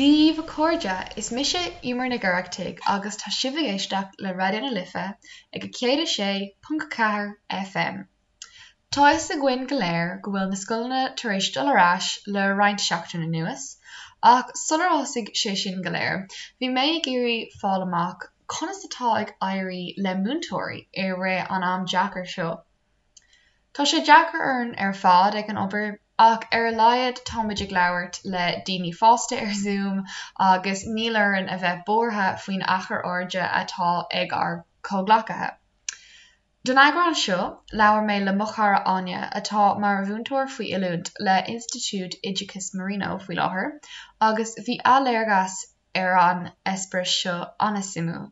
Dia daoibh a chairde, is mise Emer Nic Oireachtaigh agus tá sibh ag éisteacht le Raidió na Life ag 106.4 FM. Tá a fhios againn go léir go bhfuil na scoileanna tar éis dul ar ais le roinnt seachtain anuas, ach sular thosaigh sé sin go léir, bhí mé ag iarraidh fáil amach conas atá ag éirí le múinteoirí i rith an am deacair seo. Tá sé deacair orainn ar fad ag an obair, ach ar a laghad táimid ag labhairt le daoine fásta ar Zoom agus níl orainn a bheith buartha faoin achar airde atá ag ár gcomhghleacaithe. Don eagrán seo, labhair mé le mo chara Áine, atá mar mhúinteoir faoi oiliúint le Institiúid Oideachais Marino faoi láthair, agus bhí a léargas ar an eispéireas seo an-suimiúil.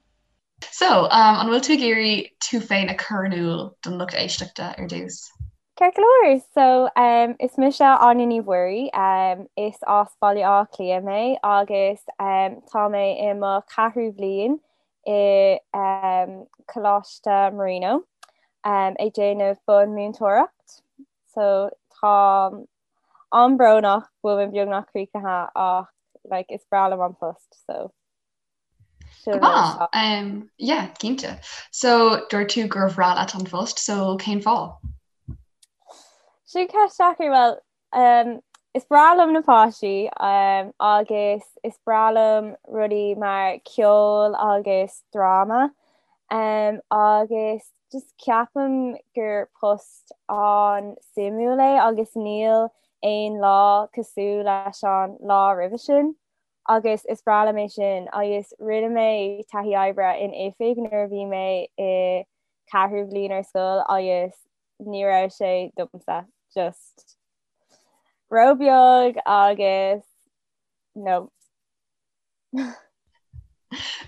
So, an bhfuil tú ag iarraidh tú féin a chur in iúl don lucht éisteachta ar dtús? Ceart go leor! So, is mise Áine Ní Mhuirí, is as Baile Átha Cliath mé agus tá mé i mo cheathrú bhliain i Coláiste Marino ag déanamh bunmhúinteoireacht so táim an-bhrónach go bhfuil mé beagnach críochnaithe ach like is breá liom an post so sin rud atá. Yeah, cinnte. So dúirt tú gur bhreá leat an phost, so cén fáth? Sin ceist deacair, well Is breá liom na páistí agus is breá liom rudaí mar ceol agus dráma agus just ceapaim gur post an-suimiúil é agus níl aon lá cosúil leis an lá roimhe sin agus is breá liom é sin agus rinne mé taithí oibre in oifig nuair a bhí mé i ceathrú bhliain ar scoil agus ní raibh sé domsa just ró-bheag agus no.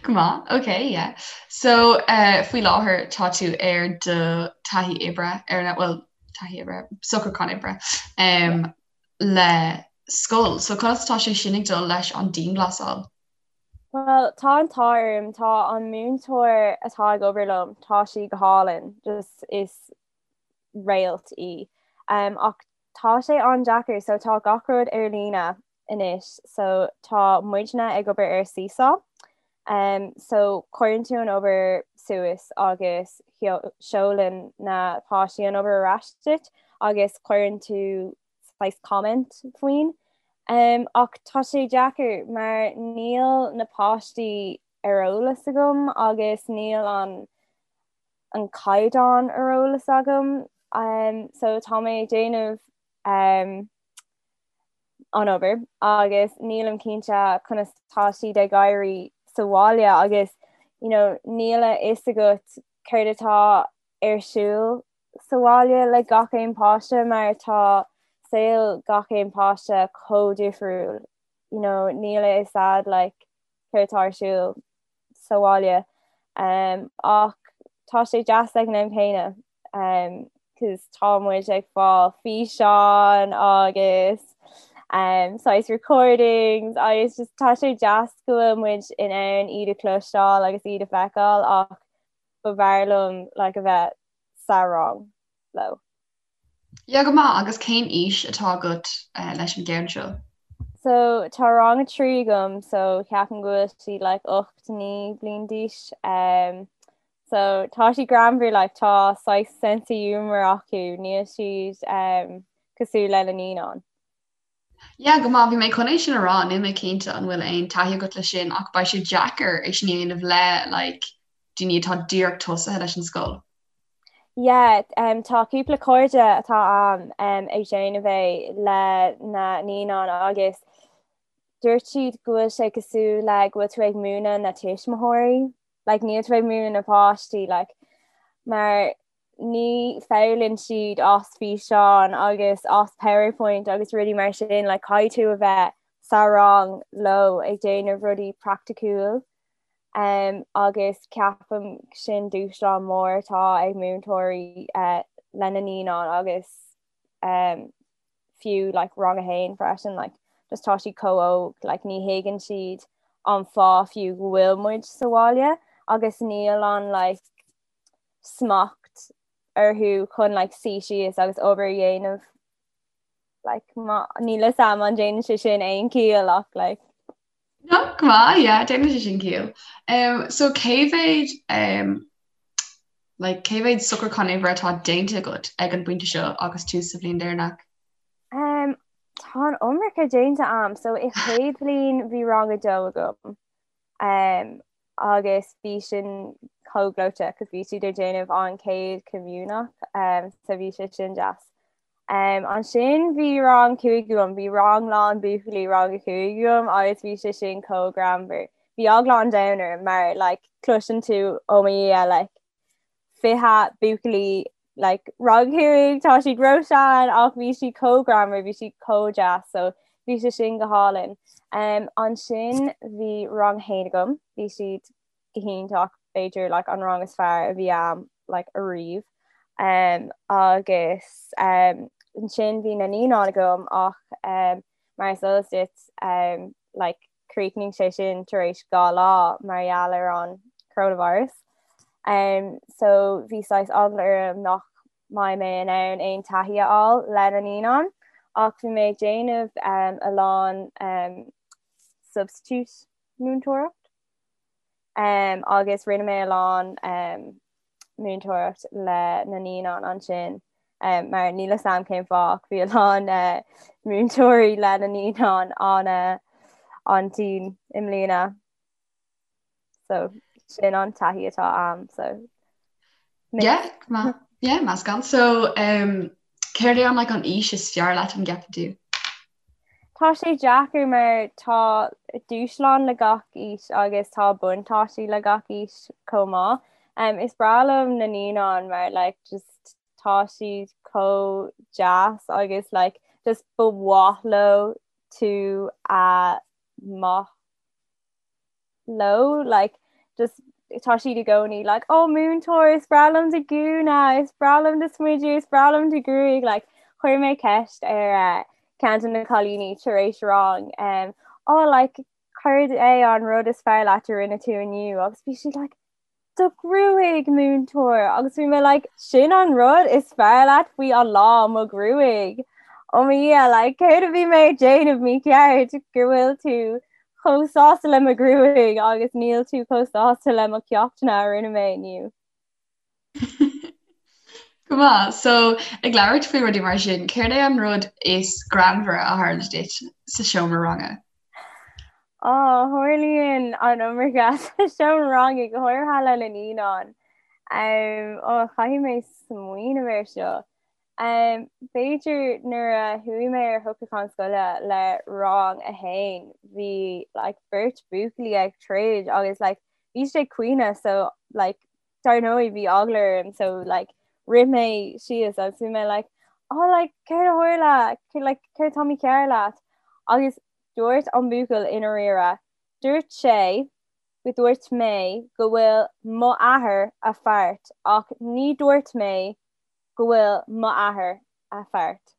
Go maith, ok, yeah. So uh, faoi láthair tá tú ar do taithí oibre ar na well taithí oibre, socrúchán oibre um, le scoil. So conas tá sé sin ag dul leis an dianghlasáil? Well tá an t-ádh orm, tá an múinteoir atá ag obair liom, tá sí go hálainn, just is réalt í. Um, ach tá sé an-deacair, so tá gach rud ar líne anois, so tá muidne ag obair ar Seesaw. Um, so cuireann tú an obair suas agus seolann na páistí an obair ar ais duit agus cuireann tú saghas comment faoin. Ach tá sé deacair mar níl na páistí ar eolas agam agus níl an an caighdeán ar eolas agam. So tá mé ag déanamh an obair agus nílim cinnte conas tá siad ag éirí sa bhaile agus you know níl a fhios agat céard atá ar siúl sa bhaile le gach aon páiste mar tá saol gach aon páiste chomh difriúil you know níl a fhios a'd like céard atá ar siúl sa bhaile um, ach tá sé deas ag an am céanna um, cos tá muid ag fáil físeáin agus um, saghas recordings agus just tá sé deas go bhfuil muid in ann iad a chloisteáil agus iad a feiceáil ach ba bhfearr liom like a bheith sa rang leo. Yeah, go maith, agus cén aois atá agat leis an gceann seo? So tá rang a 3 agam so ceapaim go bhfuil siad like 8, 9 bliain d'aois. Um, so tá siad greannmhar like tá saghas sense of humour acu, níl siad um, cosúil le na naíonáin. Yeah, go maith, bhí mé chun é sin a rá, níl mé cinnte an bhfuil aon taithí agat le sin ach beidh sé deacair é sin a dhéanamh le like daoine atá díreach tosaithe leis an scoil. Yeah, um, tá cúpla cairde atá a'm um, ag déanamh é le na naíonáin agus dúirt siad go bhfuil sé cosúil le go bhfuil tú ag múineadh na tuismitheoirí, like níl tú ag múineadh na páistí like mar ní foghlaimíonn siad as físeáin agus as PowerPoint agus rudaí mar sin, like caithfidh tú a bheith sa rang leo ag déanamh rudaí praiticiúil um, agus ceapaim sin dúshlán mór atá ag múinteoirí uh, lena naíonáin agus um, fiú like, rang a haon freisin like, just tá siad chomh óg like, ní thuigeann siad an fáth fiú go bhfuil muid sa bhaile agus níl an like, smacht orthu chun like suí síos agus obair a dhéanamh like má níl a fhios a'm an déanann sé sin aon chiall ach like. No, go maith, yeah, déanann sé sin ciall. Um, so cé mhéad um, like, cé mhéad socrúchán oibre atá déanta agat ag an bpointe seo agus tú sa bhliain deireanach? Um, tá an iomarca déanta a'm, so i chéad bhliain bhí rang a dó agam. Um, agus bhí sin chomh gleoite cos bhí siad ag déanamh an chéad comaoineach um, so bhí sé sin deas. Um, ansin bhí rang 5 agam, bhí rang lán buachaillí rang a 5 agam agus bhí sé sin chomh greannmhar. Bhí eagla an domhain orm mar like, cloiseann tú oh mo Dhia like, 20 buachaillí like rang 5 tá siad ró-shean ach bhí siad chomh greannmhar, bhí siad chomh deas so bhí sé sin go hálainn. Um, ansin bhí rang 1 agam, bhí siad go hiontach, b'fhéidir like an rang is fearr a bhí a'm like ariamh. Um, agus um, ansin bhí na naíonáin agam ach um, mar is eol duit um, like chríochnaigh sé sin tar éis 2 lá mar gheall ar an coronavirus. Um, so bhí saghas eagla orm nach mbeidh mé in ann aon taithí a fháil le na naíonáin ach bhí mé ag déanamh um, a lán um, substitute múinteoireacht. Um, agus rinne mé a lán um, múinteoireacht le na naíonáin ansin um, mar níl a fhios a'm cén fáth ach bhí a lán uh, múinteoirí le na naíonáin an uh, an-tinn i mbliana. So sin an taithí atá a'm so Yeah, ma yeah, meascán. So um, céard é an like, an aois is fearr leat an gceapann tú? Tá sé deacair mar tá dúshlán le gach aois agus tá buntáistí le gach aois chomh maith. Um, is breá liom na naíonáin mar like, just tá siad chomh deas agus like, just ba mhaith leo tú a maith leo like just tá siad i gcónaí like oh múinteoir is breá liom do ghúna is breá liom do smideadh is breá liom do ghruaig like chuir mé ceist ar uh, ceann de na cailíní tar éis rang um, oh like céard é an rud is fearr leat a rinne tú inniu agus bhí sí like do ghruaig múinteoir agus bhí mé like sin an rud is fearr leat faoi an lá mo ghruaig oh mo Dhia like céard a bhí mé ag déanamh mícheart go bhfuil tú chomh sásta le mo ghruaig agus níl tú chomh sásta le mo cheachtanna a rinne mé inniu. Go maith, so ag labhairt faoi rudaí mar sin, céard é an rud is greannmhaire a tharla duit sa seomra ranga? Á, tharlaíonn an iomarca sa seomra ranga, go háirithe le na naíonáin. Ó, caithfidh mé smaoineamh air seo. B'fhéidir nuair a chuaigh mé ar shocrúchán scoile le rang a haon, bhí like beirt buachaillí ag troid agus like bhí siad ag caoineadh so like dar ndóigh bhí eagla orm so like rith mé síos agus bhí mé like oh like céard a tharla like céard atá mícheart leat agus dúirt an buachaill i ndáiríre dúirt sé go dúirt mé go bhfuil mo athair a feart ach ní dúirt mé go bhfuil mo athair a feart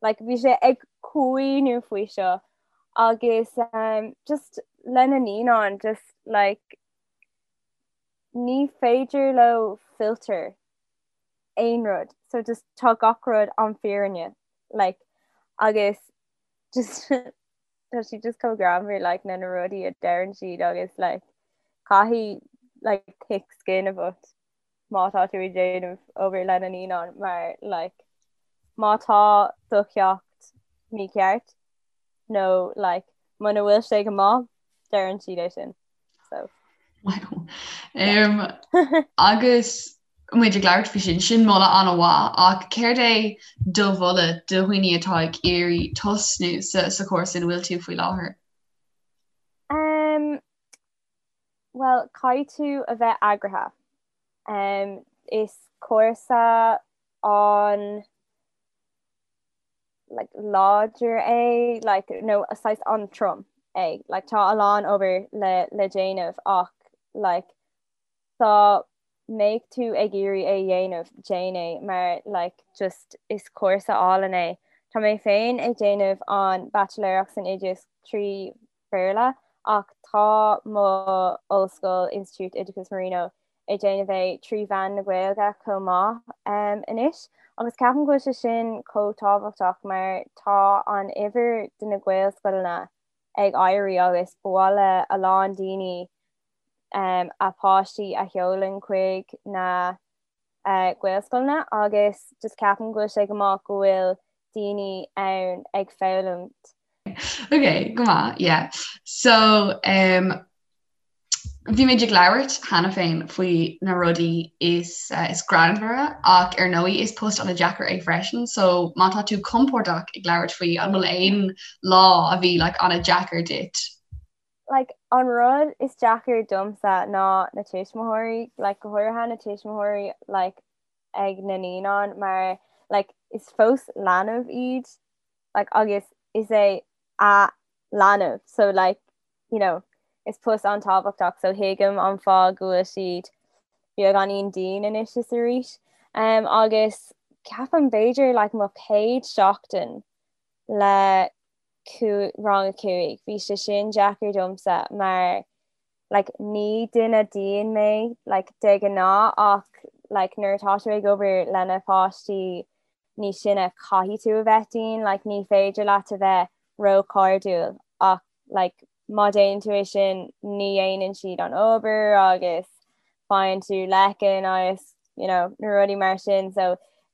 like bhí sé ag caoineadh faoi seo agus um, just lena naíonáin just like ní féidir leo filter aon rud so just tá gach rud an fírinne like agus just tá siad just chomh greannmhar like na na rudaí a deireann siad agus like caithfidh like thick skin a bheith má tá tú ag déanamh obair le na naíonáin mar like má tá do cheacht mícheart nó like muna bhfuil sé go maith deireann siad é sin. So. Wow. Um, agus muid ag labhairt faoi sin, sin moladh an-mhaith ach céard é do mholadh do dhaoine atá ag iarraidh tosnú sa, sa chúrsa ina bhfuil tú faoi láthair? Um, well, caithfidh tú a bheith eagraithe. Um, is cúrsa an like láidir é like nó saghas an-trom é like tá a lán obair le le déanamh ach like dá mbeadh tú ag iarraidh é dhéanamh déan é mar like just is cúrsa álainn é. Tá mé féin ag déanamh an baitsiléireacht san oideachas 3 Bhéarla ach tá mo ollscoil, Institiúid Oideachais Marino, ag déanamh é trí mheán na Gaeilge chomh maith anois agus ceapaim go bhfuil sé sin chomh tábhachtach mar tá an uimhir de na Gaelscoileanna. ag éirí agus ba mhaith le a lán daoine um, a páistí a sheolann chuig na uh, Gaelscoileanna agus just ceapaim go bhfuil sé go maith go bhfuil daoine ann ag foghlaim. Ok, go maith, yeah. So, um, bhí muid ag labhairt cheana féin faoi na rudaí is, uh, is greannmhaire ach ar ndóigh is post an-deacair é freisin, so má tá tú compordach ag labhairt faoi an bhfuil aon lá a bhí like, an-deacair duit? Like, an rud is deacair domsa ná na tuismitheoirí, like, go háirithe na tuismitheoirí like, ag na naíonáin mar like, is fós leanbh iad like, agus is é a leanbh so like, you know, is post an-tábhachtach so thuigim an fáth go bhfuil siad beagáinín dian anois is arís. Um, agus ceapaim b'fhéidir like, mo chéad seachtain le rang a 5 bhí sé sin deacair domsa mar like ní duine dian mé like de ghnáth ach like nuair atá tú ag obair le na páistí níos sine caithfidh tú a bheith dian like ní féidir leat a bheith róchairdiúil ach like má déanann tú é sin ní dhéanann siad an obair agus faigheann tú leiceann agus you know na rudaí mar sin so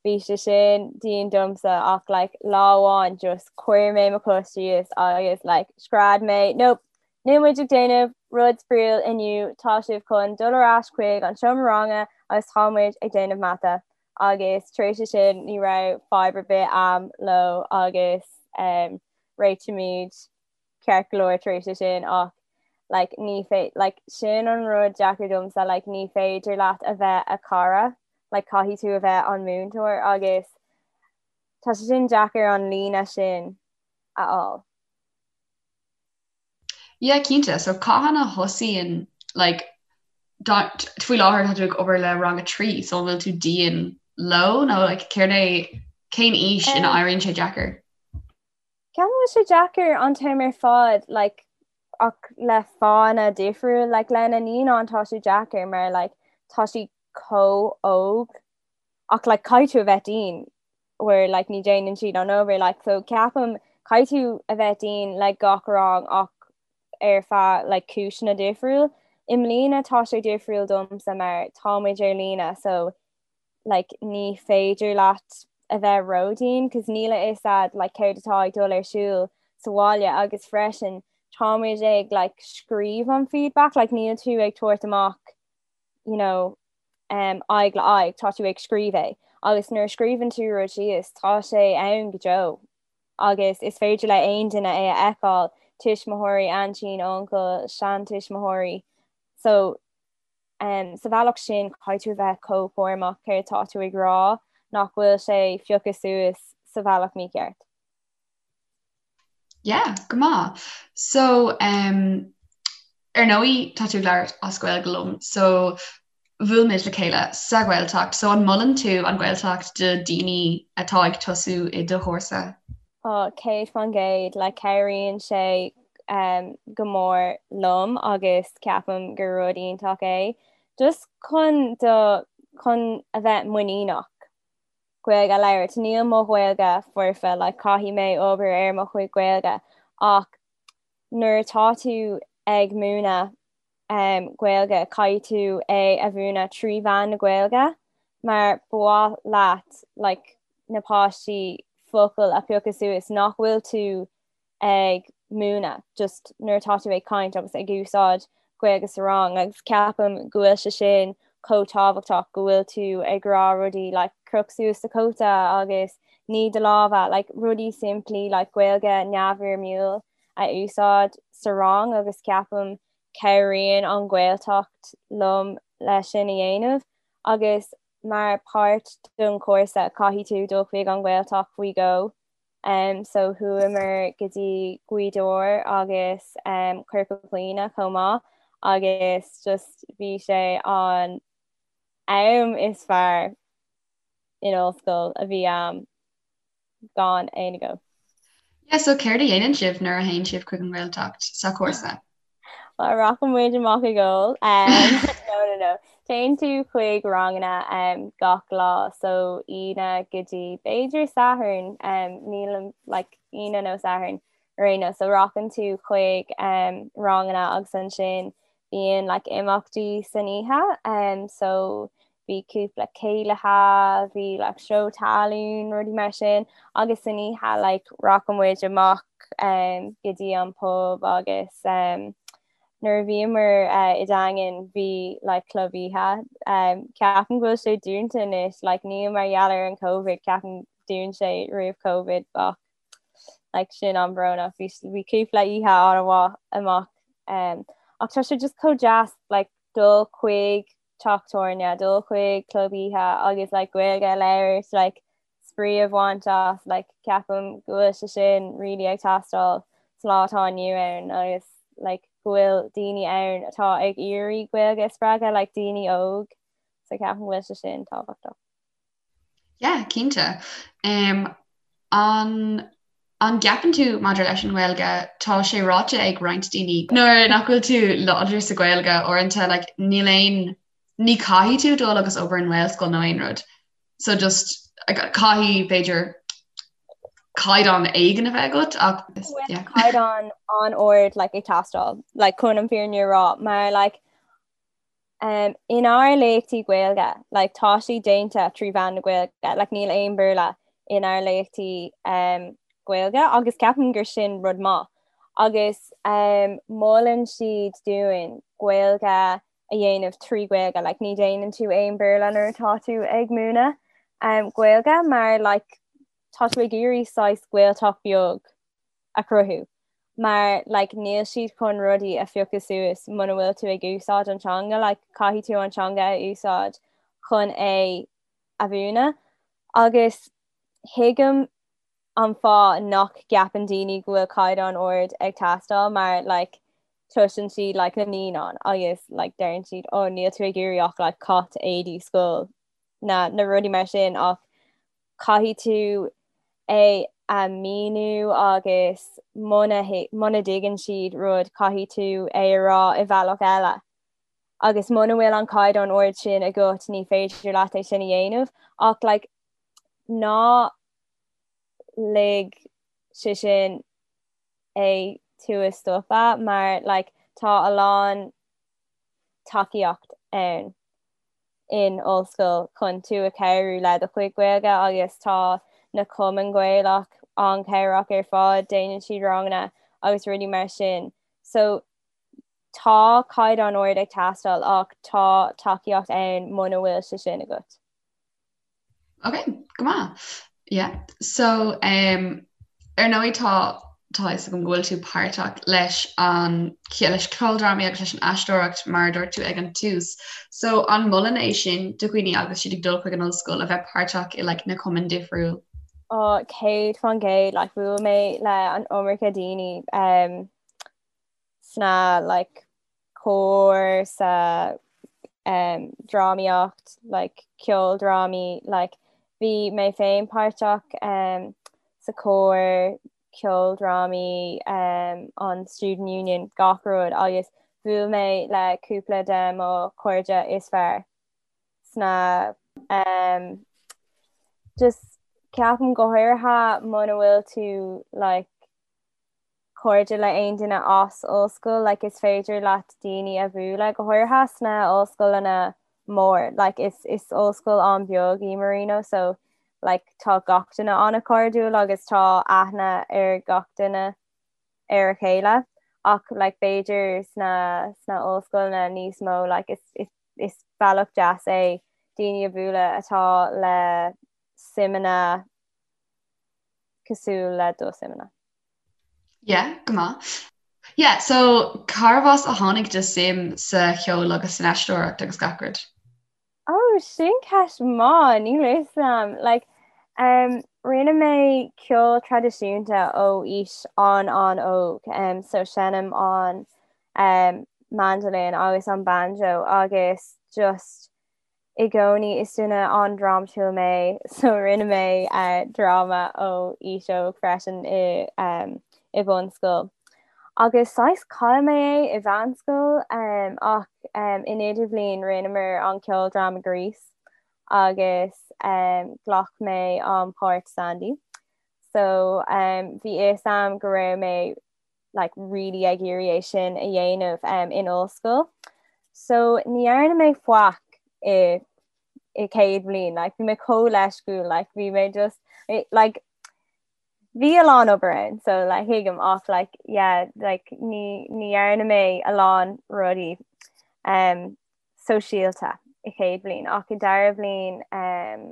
bhí sé sin dian domsa ach like lá amháin just chuir mé mo chos síos agus like scread mé nope níl muid ag déanamh rud spraíúil inniu tá sibh chun dul ar ais chuig an seomra ranga agus tá muid ag déanamh mata agus tar éis sin ní raibh fadhb ar bith a'm leo agus um, réitímid ceart go leor tar éis sin ach like ní fé like sin an rud deacair domsa like ní féidir leat a bheith a cara like caithfidh tú a bheith an múinteoir agus tá sé sin deacair an líne sin a fháil. Yeah, cinnte. So cathain a thosaíonn like faoi láthair tá tú ag obair le rang a 3 so an bhfuil tú dian leo nó like céard é cén aois ina éiríonn sé deacair? Ceapaim go bhfuil sé deacair an t-am ar fad like ach le fáthanna difriúil like le na naíonáin tá sé deacair mar like tá siad chomh óg ach like caithfidh tú a bheith dian where like ní déanann siad an obair like so ceapaim caithfidh tú a bheith dian le gach rang ach ar feadh like cúiseanna difriúil. I mbliana tá sé difriúil domsa mar tá muid ar líne so like ní féidir leat a bheith ródhian cos níl a fhios a'd like céard atá ag dul ar siúl sa bhaile agus freisin tá muid ag like scríobh an feedback like níl tú ag tabhairt amach you know um, aghaidh le aghaidh tá tú ag scríobh é agus nuair a scríobhann tú rud síos tá sé ann go deo agus is féidir le aon duine é a fheiceáil tuismitheoirí aintín uncail seantuismitheoirí so Sa bhealach sin, caithfidh tú a bheith chomh cúramach céard tá tú ag rá nach bhfuil sé pioctha suas sa bhealach mícheart. Yeah, go maith. So, um, ar ndóigh tá tú ag labhairt as Gaeilge liom, so bhuail muid le chéile sa Ghaeltacht, so an molann tú an Ghaeltacht do daoine atá ag tosú i do chúrsa? Ó, 100%, like cabhraíonn sé go mór liom agus ceapaim gur rud iontach é just chun do chun a bheith muiníneach Gaeilge a labhairt. Níl mo Ghaeilge foirfe, like caithfidh mé obair ar mo chuid Gaeilge ach nuair atá tú ag múineadh Gaeilge, caithfidh tú é a mhúineadh trí mheán na Gaeilge mar ba mhaith leat like na páistí focail a phiocadh suas nach bhfuil tú ag múineadh just nuair atá tú ag caint agus ag úsáid Gaeilge sa rang agus ceapaim go bhfuil sé sin chomh tábhachtach go bhfuil tú ag rá rudaí like croch suas do chóta agus nigh do lámha like rudaí simplí like Gaeilge neamhfhoirmiúil a úsáid sa rang agus ceapaim cabhraíonn an Ghaeltacht liom leis sin a dhéanamh agus mar páirt don chúrsa caithfidh tú dul chuig an Ghaeltacht faoi dhó um, so chuamar go dtí Gaoth Dobhair agus um, Corca Dhuibhne chomh maith agus just bhí sé an am is fearr in ollscoil a bhí a'm gan aon agó. Yeah, so céard a dhéanann sibh nuair a théann sibh chuig an nGaeltacht sa chúrsa? Well, rachaidh muid amach ag ól. Um, no, no, no. Téann tú chuig ranganna um, gach lá, so Aoine go dtí b'fhéidir Satharn, um, nílim like, Aoine nó Satharn. Ar aon nós, so rachann tú chuig um, ranganna agus ansin bíonn like, imeachtaí san oíche um, so bhí cúpla céilithe, bhí like, seó talún, rudaí mar sin agus san oíche like, rachadh muid amach um, go dtí an pub agus um, nuair a bhíomar uh, i Daingean bhí like, club oíche. Um, ceapaim go bhfuil sé dúnta anois, like, ní mar gheall ar an COVID, ceapaim dún sé roimh COVID ach like sin an-bhrónach bhí bhí cúpla oíche an-mhaith amach um, ach tá sé just chomh deas like dul chuig teach tábhairne, dul chuig club oíche agus like Gaeilge a labhairt like spraoi a bhaint as like ceapaim go bhfuil sé sin really ag teastáil sa lá atá inniu ann agus like go bhfuil daoine ann atá ag iarraidh Gaeilge a spreagadh like daoine óg so ceapaim go bhfuil sé sin tábhachtach. Yeah, cinnte. Um, an an gceapann tú maidir leis an nGaeilge, tá sé ráite ag roinnt daoine nuair nach bhfuil tú láidir sa Ghaeilge uaireanta like, níl aon ní caithfidh tú dul agus obair in nGaelscoil nó aon rud. So just caithfidh b'fhéidir caighdeán éigin a bheith agat ach yeah. caighdeán an-ard like, ag teastáil like, chun an fírinne a rá mar like, Um, inár léachtaí Gaeilge, like, tá sé déanta trí mheán na Gaeilge, like, níl aon Béarla inár léachtaí um, Gaeilge agus ceapaim gur sin rud maith. Agus um, molann siad dúinn Gaeilge a dhéanamh trí Ghaeilge, like, ní déanann tú aon Béarla nuair atá tú ag múineadh um, Gaeilge mar like, tá tú ag iarraidh saghas Gaeltacht beag a chruthú mar like níl siad chun rudaí a phiocadh suas muna bhfuil tú ag úsáid an teanga like caithfidh tú an teanga a úsáid chun é a mhúineadh agus thuigim an fáth nach gceapann daoine go bhfuil caighdeán ard ag teastáil mar like cloiseann siad like na naíonáin agus like deireann siad oh níl tú ag iarraidh ach like cat éadaí scoil na na rudaí mar sin ach caithfidh tú é a mhíniú agus muna muna dtuigeann siad rud caithfidh tú é a rá i bhealach eile. Agus muna bhfuil an caighdeán ard sin agat ní féidir leat é sin a dhéanamh ach like ná lig sé sin é tú a stopadh mar like tá a lán tacaíocht ann. in ollscoil chun tú a chabhrú le do chuid Gaeilge agus tá na cumainn Ghaelach an-chabhrach ar fad, déanann siad ranganna agus rudaí mar sin. So tá caighdeán ard ag teastáil ach tá tacaíocht ann muna bhfuil sé sin agat. Ok, go maith. Yeah. So um, ar ndóigh tá tá fhios agam go bhfuil tú páirteach leis an leis ceoldrámaí agus leis an aisteoireacht mar a dúirt tú ag an tús. So an molann é sin do dhaoine agus siad ag dul chuig an ollscoil a bheith páirteach i like, na cumainn difriúil? Oh, 100% like, bhuail mé le an iomarca daoine um, sna like, cór sa um, drámaíocht, like, ceoldrámaí, like, bhí mé féin páirteach um, sa cór, ceoldrámaí, um, an Student Union, gach rud agus bhuail mé le cúpla de mo chairde is fearr sna um, just ceapaim go háirithe muna bhfuil tú like, cairde le aon duine as ollscoil like is féidir leat daoine a bhualadh go háirithe sna ollscoileanna mór like is is ollscoil an-bheag í Marino so like tá gach duine an-chairdiúil agus tá aithne ar gach duine ar a chéile ach like b'fhéidir sna sna ollscoileanna níos mó like is is is bealach deas é daoine a bhualadh atá le suimeanna cosúil le do suimeanna. Yeah, go maith. Yeah, so cárbh as a tháinig do suim sa cheol agus san aisteoireacht agus gach rud? Oh, sin ceist maith, níl a fhios agam. Like, um, rinne mé ceol traidisiúnta ó aois an-an-óg, um, so seinnim an um, mandolin agus an banjo agus just I gcónaí is duine an-drámatúil mé so rinne mé dráma ó aois óg freisin i i bhunscoil. Agus saghas chaill mé é i mheánscoil ach in idirbhliain rinneamar an ceoldráma Grease agus ghlac mé an páirt Sandy. So um, bhí fhios a'm go raibh mé like really ag iarraidh é sin a dhéanamh um, in ollscoil. So ní dhearna mé faic i i céad bhliain, like bhí mé chomh leisciúil, like bhí mé just like bhí a lán obair ann so like thuigim ach like yeah like ní ní dhearna mé a lán rudaí um sóisialta i chéad bhliain ach i dara bhliain um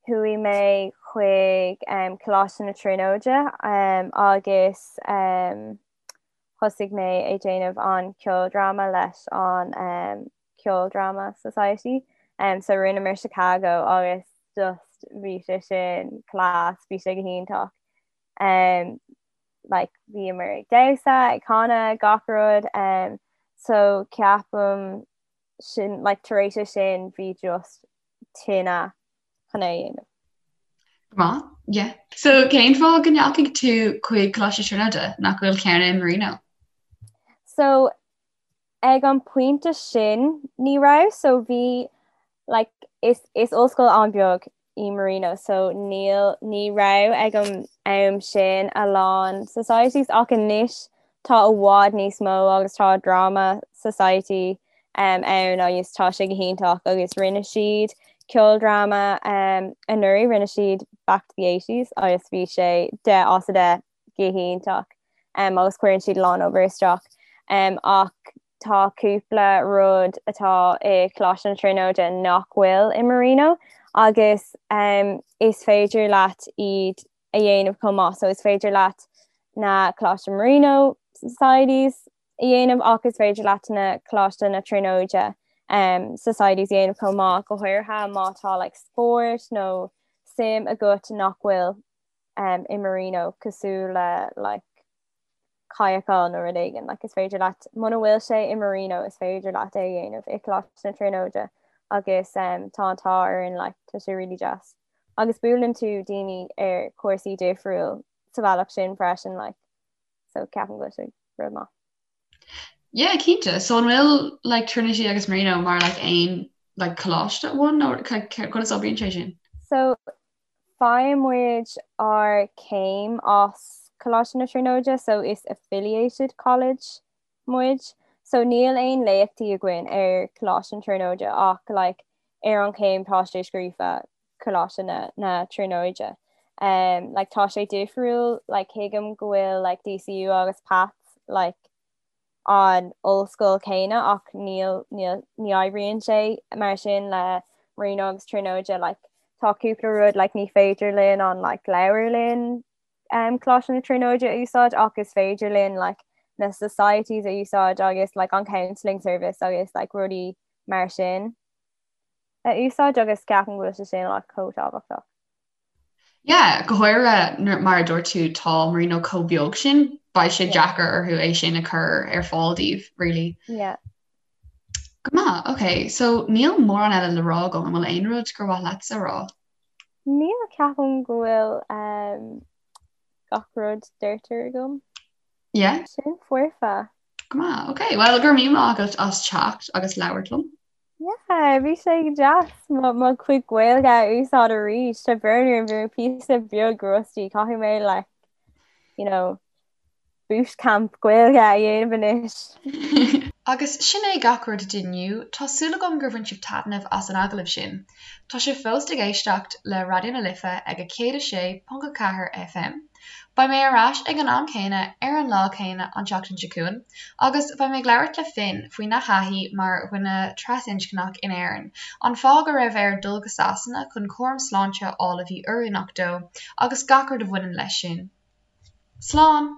chuaigh mé chuig um Coláiste na Tríonóide um agus um thosaigh mé ag déanamh an ceoldráma leis an um Ceoldráma Society. Um, so rinneamar Chicago agus just bhí sé sin class, bhí sé go hiontach. Um, like, bhíomar ag damhsa, ag canadh, gach rud. Um, so ceapaim sin like, tar éis é sin bhí just tine chun é a dhéanamh. Maith, yeah. So cén fáth go ndeachaigh tú chuig Coláiste Tríonóide nach bhfuil ceann i Marino? So ag an pointe sin ní raibh so bhí like is is ollscoil an-bheag í Marino so níl ní raibh ag an am sin a lán societies ach anois tá i bhfad níos mó agus tá drama society um, ann agus tá sé go hiontach agus rinne siad ceoldráma um, anuraidh rinne siad Back to the 80s agus bhí sé 10 as 10 go hiontach um, agus cuireann siad a lán obair isteach um, ach tá cúpla rud atá i Coláiste na Tríonóide nach bhfuil i Marino agus um, is féidir leat iad a dhéanamh chomh maith so is féidir leat na Coláiste Marino Societies a dhéanamh ach is féidir leat na Coláiste na Tríonóide um, Societies a dhéanamh chomh maith go háirithe má tá like, spórt nó suim agat nach bhfuil um, i Marino cosúil le like, kayakáil nó rud éigin like, is féidir leat muna bhfuil sé i Marino is féidir leat é a dhéanamh i Coláiste na Tríonóide agus um, tá an t-ádh orainn like, tá sé really deas. Agus buaileann tú daoine ar cúrsaí difriúil sa bhealach sin freisin like, so ceapaim go bhfuil sé rud maith. Yeah, cinnte. So an bhfuil like Trinity agus Marino mar like aon like coláiste amháin nó conas a oibríonn sé sin? So Faigheann muid ár céim as Coláiste na Tríonóide so is affiliated college muid. So níl aon léachtaí againn ar Coláiste na Tríonóide ach like ar an chéim tá sé scríofa Coláiste na, na Tríonóide. Um, like tá sé difriúil like thuigim go bhfuil like DCU agus Pats like an ollscoil céanna ach níl níl ní oibríonn sé mar sin le Marino agus Tríonóide like tá cúpla rud like ní féidir linn an like leabharlann um, Coláiste na Tríonóide a úsáid ach is féidir linn like na societies a úsáid agus like an counselling service agus like rudaí mar sin a úsáid agus ceapaim go bhfuil sé sin like chomh tábhachtach. Yeah, go háirithe mar a dúirt tú tá Marino chomh beag sin, beidh sé deacair orthu é sin a chur ar fáil daoibh, really. Yeah. Go maith, ok, so níl mórán eile le rá agam, an bhfuil aon rud gur mhaith leatsa a rá? Níl, ceapaim go bhfuil um, gach rud deirte agam. Yeah? Sin foirfe. Go maith, ok, well go raibh míle maith agat as teacht agus labhairt liom. Yeah, bhí sé go deas mo mo chuid Gaeilge a úsáid arís Tá brón orm bhí mé píosa beag rusty caithfidh mé like you know bootcamp Gaeilge a dhéanamh anois. Agus sin é gach rud d'inniu, tá súil agam gur bhain sibh taitneamh as an agallamh sin. Tá sibh fós ag éisteacht le Raidió na Life ag 106.4 FM. Beidh mé ar ais ag an am céanna ar an lá céanna an tseachtain seo chugainn agus beidh mé ag labhairt le Finn faoina thaithí mar dhuine trasinscneach in Éirinn, an fáth go raibh air dul go Sasana chun cúram sláinte a fháil a bhí oiriúnach dó agus gach rud a bhaineann leis sin. Slán!